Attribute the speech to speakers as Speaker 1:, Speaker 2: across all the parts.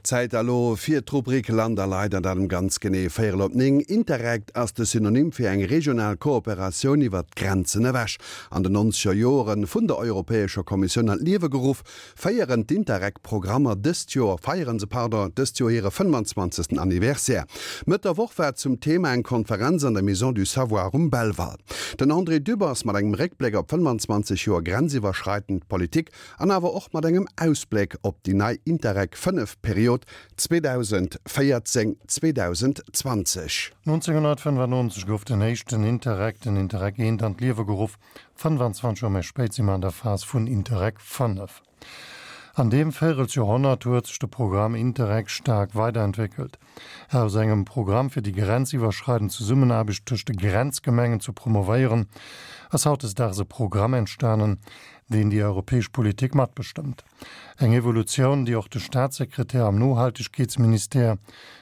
Speaker 1: Zäit elo fir d'Rubrik Land a Leit an dat um ganz genee véierel op 9. Interreg ass de Synonym fir eng regional Kooperatioun iwwert d'Grenzen ewech. An den nonzeger Joere vun der Europäescher Kommissioun an d'Liewe geruff, féieren d'Interreg-Programmer dëst Joer, feieren se, pardon, dëst Joer hire 25. Anniversaire. Mëtt der Woch war zum Thema eng Konferenz an der Maison du Savoir um Belval. Den André Dübbers mat engem Réckbléck op 25 Joer grenziwwerschreitend Politik An awer och mat engem Ausbléck op déi nei Interreg 5 Period 2014, 2020.
Speaker 2: 1995 gouf den éischten Interreg, den Interreg I, an d'Liewe geruff. 25 Joer méi spéit si mer an der Phas vun Interreg 5. An deem Véirelsjoerhonnert huet sech de Programm Interreg staark weiderentwéckelt. Aus engem Programm fir déi grenziwwerschreidend Zesummenaarbecht tëscht de Grenzgemengen ze promovéieren, ass hautdesdaags e Programm entstanen, deen déi europäesch Politik matbestëmmt. Eng Evolutioun, déi och de Staatssekretär am Nohaltegkeetsministère,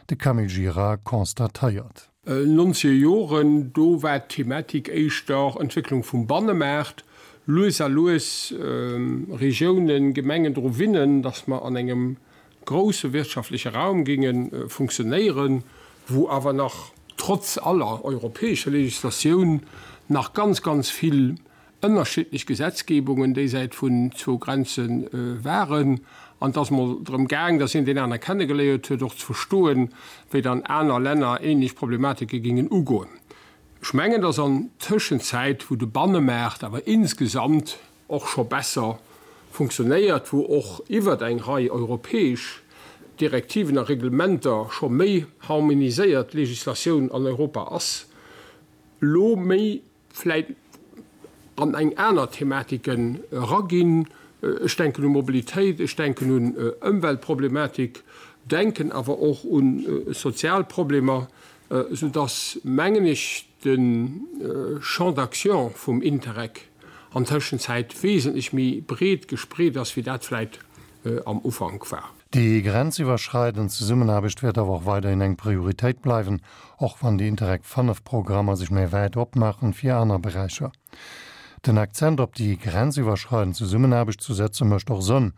Speaker 2: de Camille Gira, constatéiert.
Speaker 3: Nonzeger Joren, do war d'Thematik éischter Entwécklung vum Bannemaart, lues a lues Regiounen, Gemengen dru winnen, datt mer an engem grousse wirtschaftleche Raum géinge funktionéieren, wou awer nach trotz aller europäescher Legislatioun nach ganz, ganz vill ënnerschiddlech Gesetzgebungen déisäit vun zwou Grenze waren. An et ass mol drëm gaang, datt een deen aner kennegeléiert huet, och ze verstoen, wéi dann aner Länner ähnlech Problematike géingen ugoen. Ech mengen, datt an Tëschenzäit, wou de Bannemaart awer insgesamt och scho besser funktionéiert, wou och iwwert eng Rei europäesch Direktiven a Reglementer scho méi harmoniséiert Legislatioun an Europa ass, elo méi vläit an eng aner Thematiken eraginn. Ech denken u Mobilitéit, ech denken un Ëmweltproblematik, denken awer och u sozial Problemer, soudass, mengen ech, de Champ d'action vum Interreg an Tëschenzäit wesentlech méi breet gespreet ass, wéi dat vläit am Ufank war.
Speaker 2: Déi grenziwwerschreidend Zesummenaarbecht wäert awer och weiderhin eng Prioritéit bleiwen, och wann déi Interreg 5 Programmer sech méi wäit opmaachen fir aner Beräicher. Den Akzent op déi grenziwwerschreidend Zesummenaarbecht zu setze mécht och Sënn,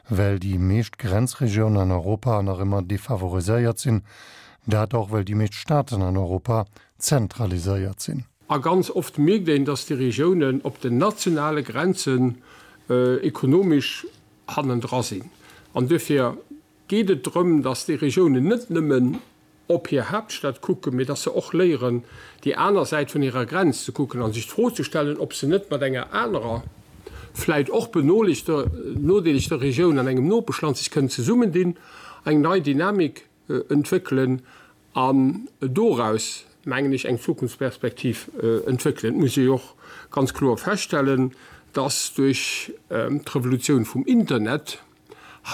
Speaker 2: well déi meescht Grenzregiounen an Europa nach ëmmer defavoriséiert sinn, dat och well déi meescht Staaten an Europa zentraliséiert sinn.
Speaker 3: A ganz oft mierkt een, dass déi Regiounen op den nationale Grenzen ekonomesch hannendra sinn. An duerfir geet et drëm, dass déi Regiounen net nëmmen op hir Haaptstad kucken, mee dass se och léieren, déi aner Säit vun hirer Grenz ze kucken a sech d'Fro ze stellen, ob se net mat enger anerer, vläicht och benodeelegter Regioun an engem Nopeschland sech kënnen zesummendinn, eng nei Dynamik entwéckelen an doraus, mengen ech, eng Zukunftsperspektiv entwéckelen. Et muss ee jo och ganz kloer feststellen, dass duerch d'Revolutioun vum Internet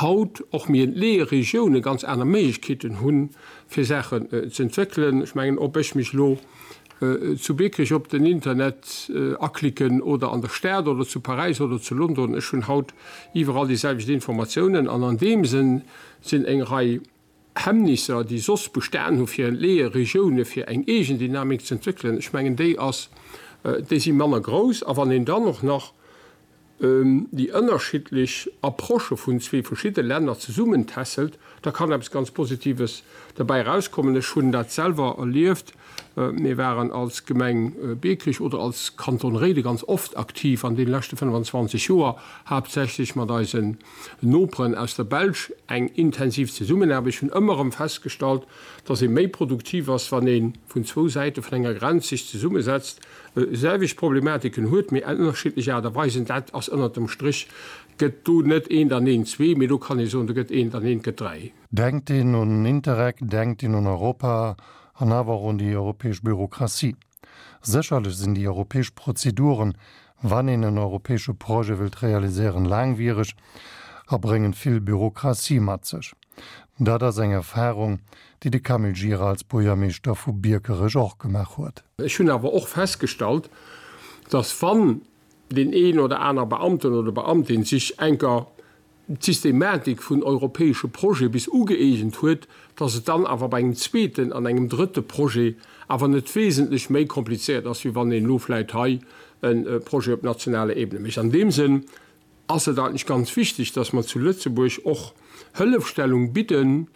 Speaker 3: haut och méi entleeë Regioune ganz aner Méiglechkeeten hunn, fir Saachen ze entwéckelen. Ech mengen, ob ech mech elo zu Biekerech op den Internet aklicken oder an der Stad oder zu Paräis oder zu London, ech hunn haut iwwerall déi selwecht Informatiounen. An an deem Sënn sinn eng Rei Hemmnisser, déi soss bestan hu fir entleeë Regioune fir eng eegen Dynamik ze entwéckelen, ech mengen déi ass, déi si manner grouss. A wann een dann och nach déi ënnerschiddlech Approchë vun zwee verschidde Länner zesummentässelt, da kann eppes ganz Positives derbäi erauskommen. Ech hunn dat selwer erlieft. Mir waren als Gemeng Biekerech oder als Kanton Réiden ganz oft aktiv an deene leschte 25 Joer, haaptsächlech mat eisen Noperen aus der Belsch eng intensiv Zesummenaarbecht. Ech hunn ëmmer erëm festgestallt, dass ee méi produktiv ass, wann ee vun zwou Säite vun enger Grenz sech zesummesetzt, selwecht Problematiken huet, mee ënnerschiddlech Aart a Weisen. Dat ass ënnert dem Strich, gëtt do net eent an eent zwee, mee do kann ee soen, do gëtt eent an eent gëtt dräi.
Speaker 2: Denkt een un Interreg, denkt een un Europa an awer och un déi europäesch Bürokratie. Sécherlech sinn déi europäesch Prozeduren, wann een en europäesche Projet wëllt realiséieren, laangwiereg a bréngen vill Bürokratie mat sech. Dat ass eng Erfahrung, déi de Camille Gira als Buergermeeschter vu Biekerech och gemaach huet.
Speaker 3: Ech hunn awer och festgestallt, dass wann deen een oder aner Beamten oder Beamtin sech enker d'Systematik vun europäesche Projete bis ugëeegent huet, dass et dann awer bei engem zweeten an engem drëtte Projet awer net wesentlech méi komplizéiert ass, wéi wann een elo vläicht hei e Projet op nationaler Ebene mécht. An deem Sënn. ass et eigentlech ganz wichteg, dass mer zu Lëtzebuerg och Hëllefstellung bidden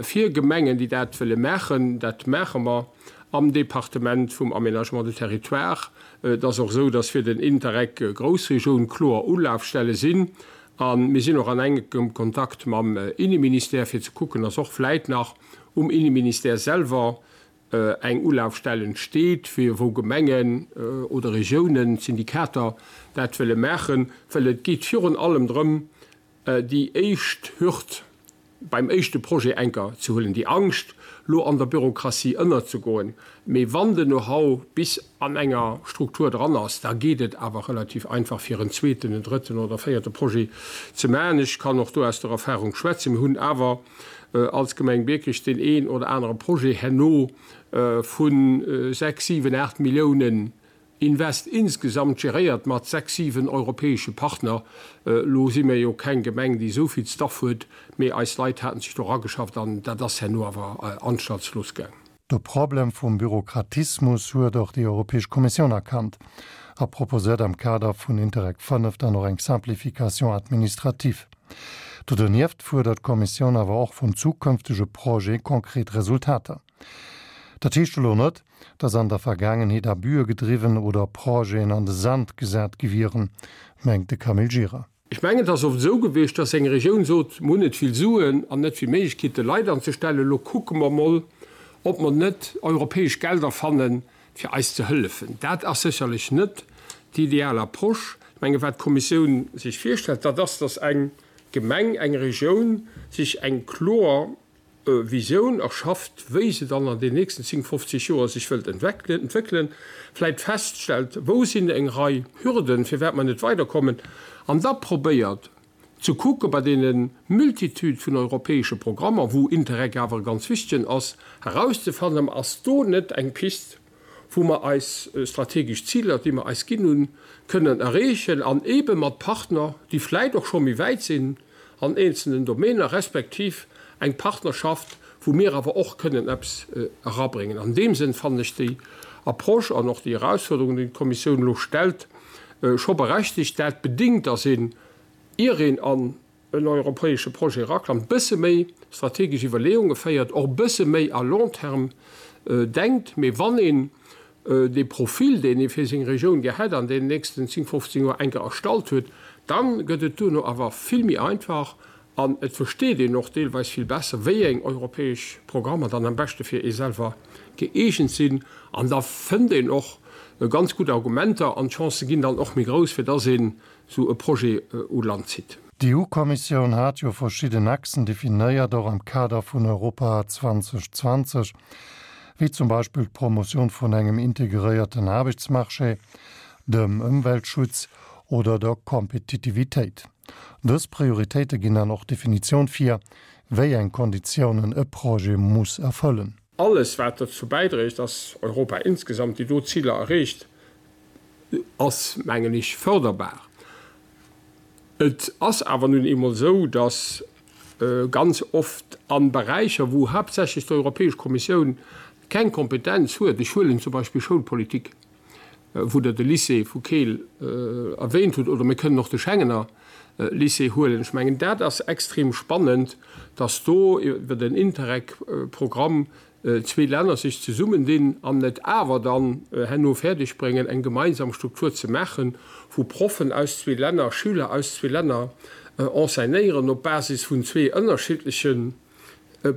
Speaker 3: fir Gemengen, déi dat wëlle maachen. Dat maache mer am Departement vum Aménagement du Territoire. Et ass och esou, dass fir den Interreg Groussregioun kloer Ulafstelle sinn. A mir sinn och an enkem Kontakt mam Inneministère, fir ze kucken, dass och vläit nach um Inneministère selwer eng Ulafstell entsteet, fir wou Gemengen oder Regiounen, Syndikater dat wëlle maachen, well et geet virun allem drëm, déi éischt Hürd beim éischte Projet enker ze huelen, déi Angscht, lo an der Bürokratie ënnerzegoen. Mee wann den Know-how bis an enger Struktur dran ass, da geet et awer relativ einfach, fir en zweeten, en drëtten oder véierte Projet ze maachen. Ech kann och do aus der Erfahrung schwätzen. Mir hunn awer als Gemeng Biekerech deen een oder anere Projet herno vu 6, 7, 8 Milliounen Invest insgesamt geréiert mat 6, 7 europäesche Partner. Elo si mir jo keng Gemeng, déi esou vill Staff huet, mee eis Leit haten sech do erageschafft an dat ass herno awer anstaltslos gaang.
Speaker 2: De Problem vum Bürokratismus huet och déi Europäesch Kommissioun erkannt a proposéiert am Kader vun Interreg 5 dann och eng Simplification administrative. Do donieft fuerdert d'Kommissioun awer och vun zukünftege Projete konkret Resultater. Dat heescht elo net, datt an der Vergaangenheet Abüe gedriwwen oder Projeten an de Sand gesat gi wieren, mengt de Camille Gira.
Speaker 3: Ech mengen, et ass oft esou gewiescht, dass eng Regioun sot, Mir hunn net vill Suen an net vill Méiglechkeete Leit anzestellen, elo kucke mer mol, ob mer net europäesch Gelder fannen, fir eis ze hëllefen. Dat ass sécherlech net déi ideal Approche. Ech mengen, wat d'Kommissioun sech virstellt, dat ass, dass eng Gemeng, eng Regioun sech eng kloer Visioun erschafft, wéi se dann an den nächsten 10, 50 Joer sech wëllt entwéckelen, vläit feststellt, wou sinn eng Rei Hürden, firwat mer net weiderkommen, an da probéiert ze kucke bei deene Multitude vun europäesche Programmer, wou Interreg awer e ganz wichtegen ass, erauszefannen, ass do net eng Pist, wou mer eis strategesch Ziler, déi mer eis ginn hunn, kënnen erreechen an eebe mat Partner, déi vläit och scho méi wäit sinn an eenzelnen Domäner, respektiv eng Partnerschaft, wou mir awer och kënnen eppes erabréngen. An deem Sënn fannen ech déi Approche an och déi Erausfuerderungen, déi d'Kommissioun elo stellt, scho berechtigt. Dat bedingt, dass een, ier een an en europäesche Projet eraklammt, bësse méi strategesch Iwwerleeunge féiert, och bësse méi à long terme denkt. Mee wann een dee Profil, deen ee fir seng Regioun gär hätt, an deenen nächsten 10, 15 Joer enker erstallt huet, da gëtt et duerno awer vill méi einfach an et versteet een och deelweis vill besser, wéi eng europäesch Programmer dann am beschte fir ee selwer gëeegent sinn. An da fënnt een och ganz gutt Argumenter an d'Chancë ginn dann och méi grouss, fir dass een esou e Projet u Land zitt.
Speaker 2: D'EU-Kommissioun hat jo verschidden Achsen definéiert, och am Kader vun Europa 2020, wéi zum Beispill d'Promotioun vun engem integréierten Aarbechtsmarché, dem Ëmweltschutz oder der Kompetitivitéit. Dës Prioritéite ginn dann och d'Definitioun vir, wéi eng Konditiounen e Projet muss erfëllen.
Speaker 3: Alles, wat dozou bäidréit, dass Europa insgesamt déi do Ziler erreecht, ass, mengen ech, förderbar. Et ass awer nun eemol esou, dass ganz oft a Beräicher, wou haaptsächlech d'Europäesch Kommissioun keng Kompetenz huet, ech huelen zum Beispill Schoulpolitik, wou Der de Lycée vu Keel erwähnt hutt, oder mir kënnen och de Schengener Lycée huelen, ech mengen, dat ass extrem spannend, dass do iwwer den Interreg-Programm zwee Länner sech zesummendinn an et awer dann herno fäerdeg bréngen, eng gemeinsam Struktur ze maachen, wou Proffen aus zwee Länner Schüler aus zwee Länner enseignéieren op Basis vun zwee ënnerschiddleche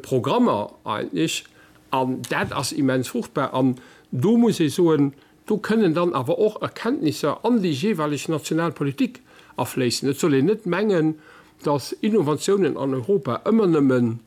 Speaker 3: Programmer eigentlech. An dat ass immens fruchtbar. An do muss ee soen, do kënnen dann awer och Erkenntnisser an déi jeeweileg national Politik afléissen. Et soll een net mengen, dass Innovatiounen an Europa ëmmer nëmmen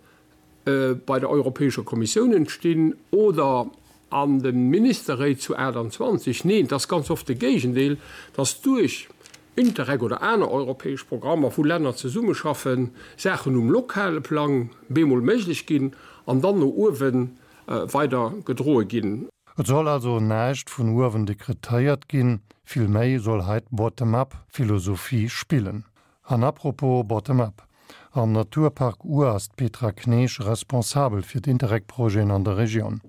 Speaker 3: bei der Europäescher Kommissioun entstinn oder an de Ministerréit zu 28. Neen, et ass ganz oft de Géigendeel, dass duerch Interreg oder aner europäesch Programmer, wou Länner zesummeschaffen, Saachen um lokale Plang bemol méiglech ginn an dann no uewe weider gedroe ginn.
Speaker 2: Et soll also näischt vun uewen dekretéiert ginn, villméi soll hei d'Bottom-up-Philosophie spillen. An apropos Bottom-up, Am Naturpark Our ass d'Petra Knesch responsabel fir d'Interreg-Projeten an der Regioun.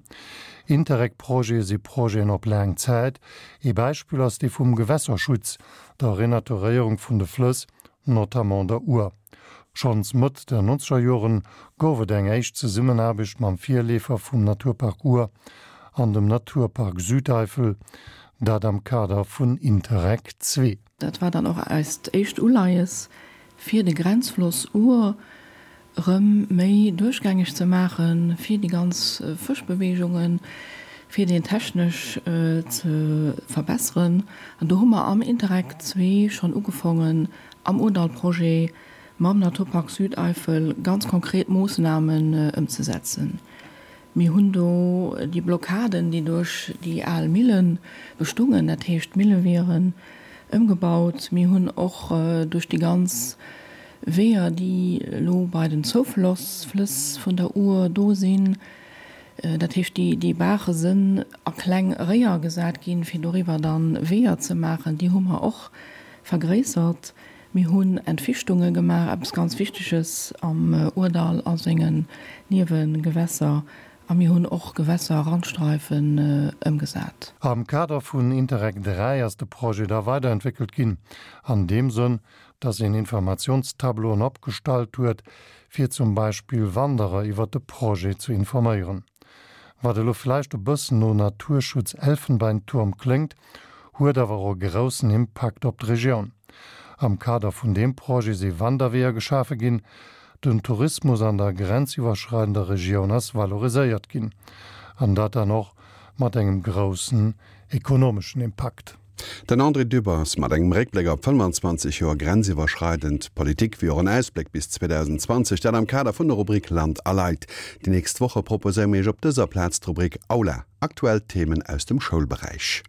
Speaker 2: Interreg-Projete si Projeten op laang Zäit. Ee Beispill ass dee vum Gewässerschutz, der Renaturéierung vun de Flëss. notamment der Our. Schonns Mëtt der nonzeger Joren gouf et eng éischt Zesummenaarbecht mam Virleefer vum Naturpark Our an dem Naturpark Südeifel, dat am Kader vun Interreg ii.
Speaker 4: Dat war dann och eist éischt Uleies, fir de Grenzfloss Our erëm méi duerchgängeg ze maachen, fir déi ganz Fëschbeweegungen, fir deen technesch ze verbesseren. An do hu mer am Interreg ii schonn ugefongen, am Ourdall-Projet mam Naturpark Südeifel ganz konkret Moossnamen ëmzesetzen. Mir hunn do déi Blockaden, déi duerch déi al Mille bestungen, dat heescht d'Millewieren, ëmgebaut. Mir hunn och duerch déi ganz Weeër, déi elo bei den Zoufloss, Flëss vun der Our do sinn, dat heescht déi Baache sënn a kleng Réier gesat ginn, fir doriwwer dann Weeër ze maachen, déi hu mer och vergréissert. Mir hunn Entfichtunge gemaach, eppes ganz Wichteges am Ourdall a sengen Niewegewässer. A mir hunn och Gewässer-Randstreifen ëmgesat.
Speaker 2: Am Kader vun Interreg 3 ass de Projet da weiderentwéckelt ginn, an deem Sënn, dass een Informationstableauen opgestallt huet, fir zum Beispill Wanderer iwwert de Projet ze informéieren. Wat elo vläicht e bëssen no Naturschutz-Elfenbeinturm kléngt, huet awer och e groussen Impakt op d'Regioun. Am Kader vun deem Projet si Wanderweeër geschafe ginn, den Tourismus an der grenziwwerschreidender Regioun ass valoriséiert ginn, an dat dann och mat engem groussen ekonomeschen Impakt.
Speaker 1: Den André Dübbers mat engem Réckbléck op 25 Joer grenziwwerschreidend Politik, wéi och en Ausbléck bis 2020, dat am Kader vun der Rubrik Land a Leit. Déi nächst Woche proposéiere mir Iech op dëser Plaz d'Rubrik Aula, aktuell Themen aus dem Schoulberäich.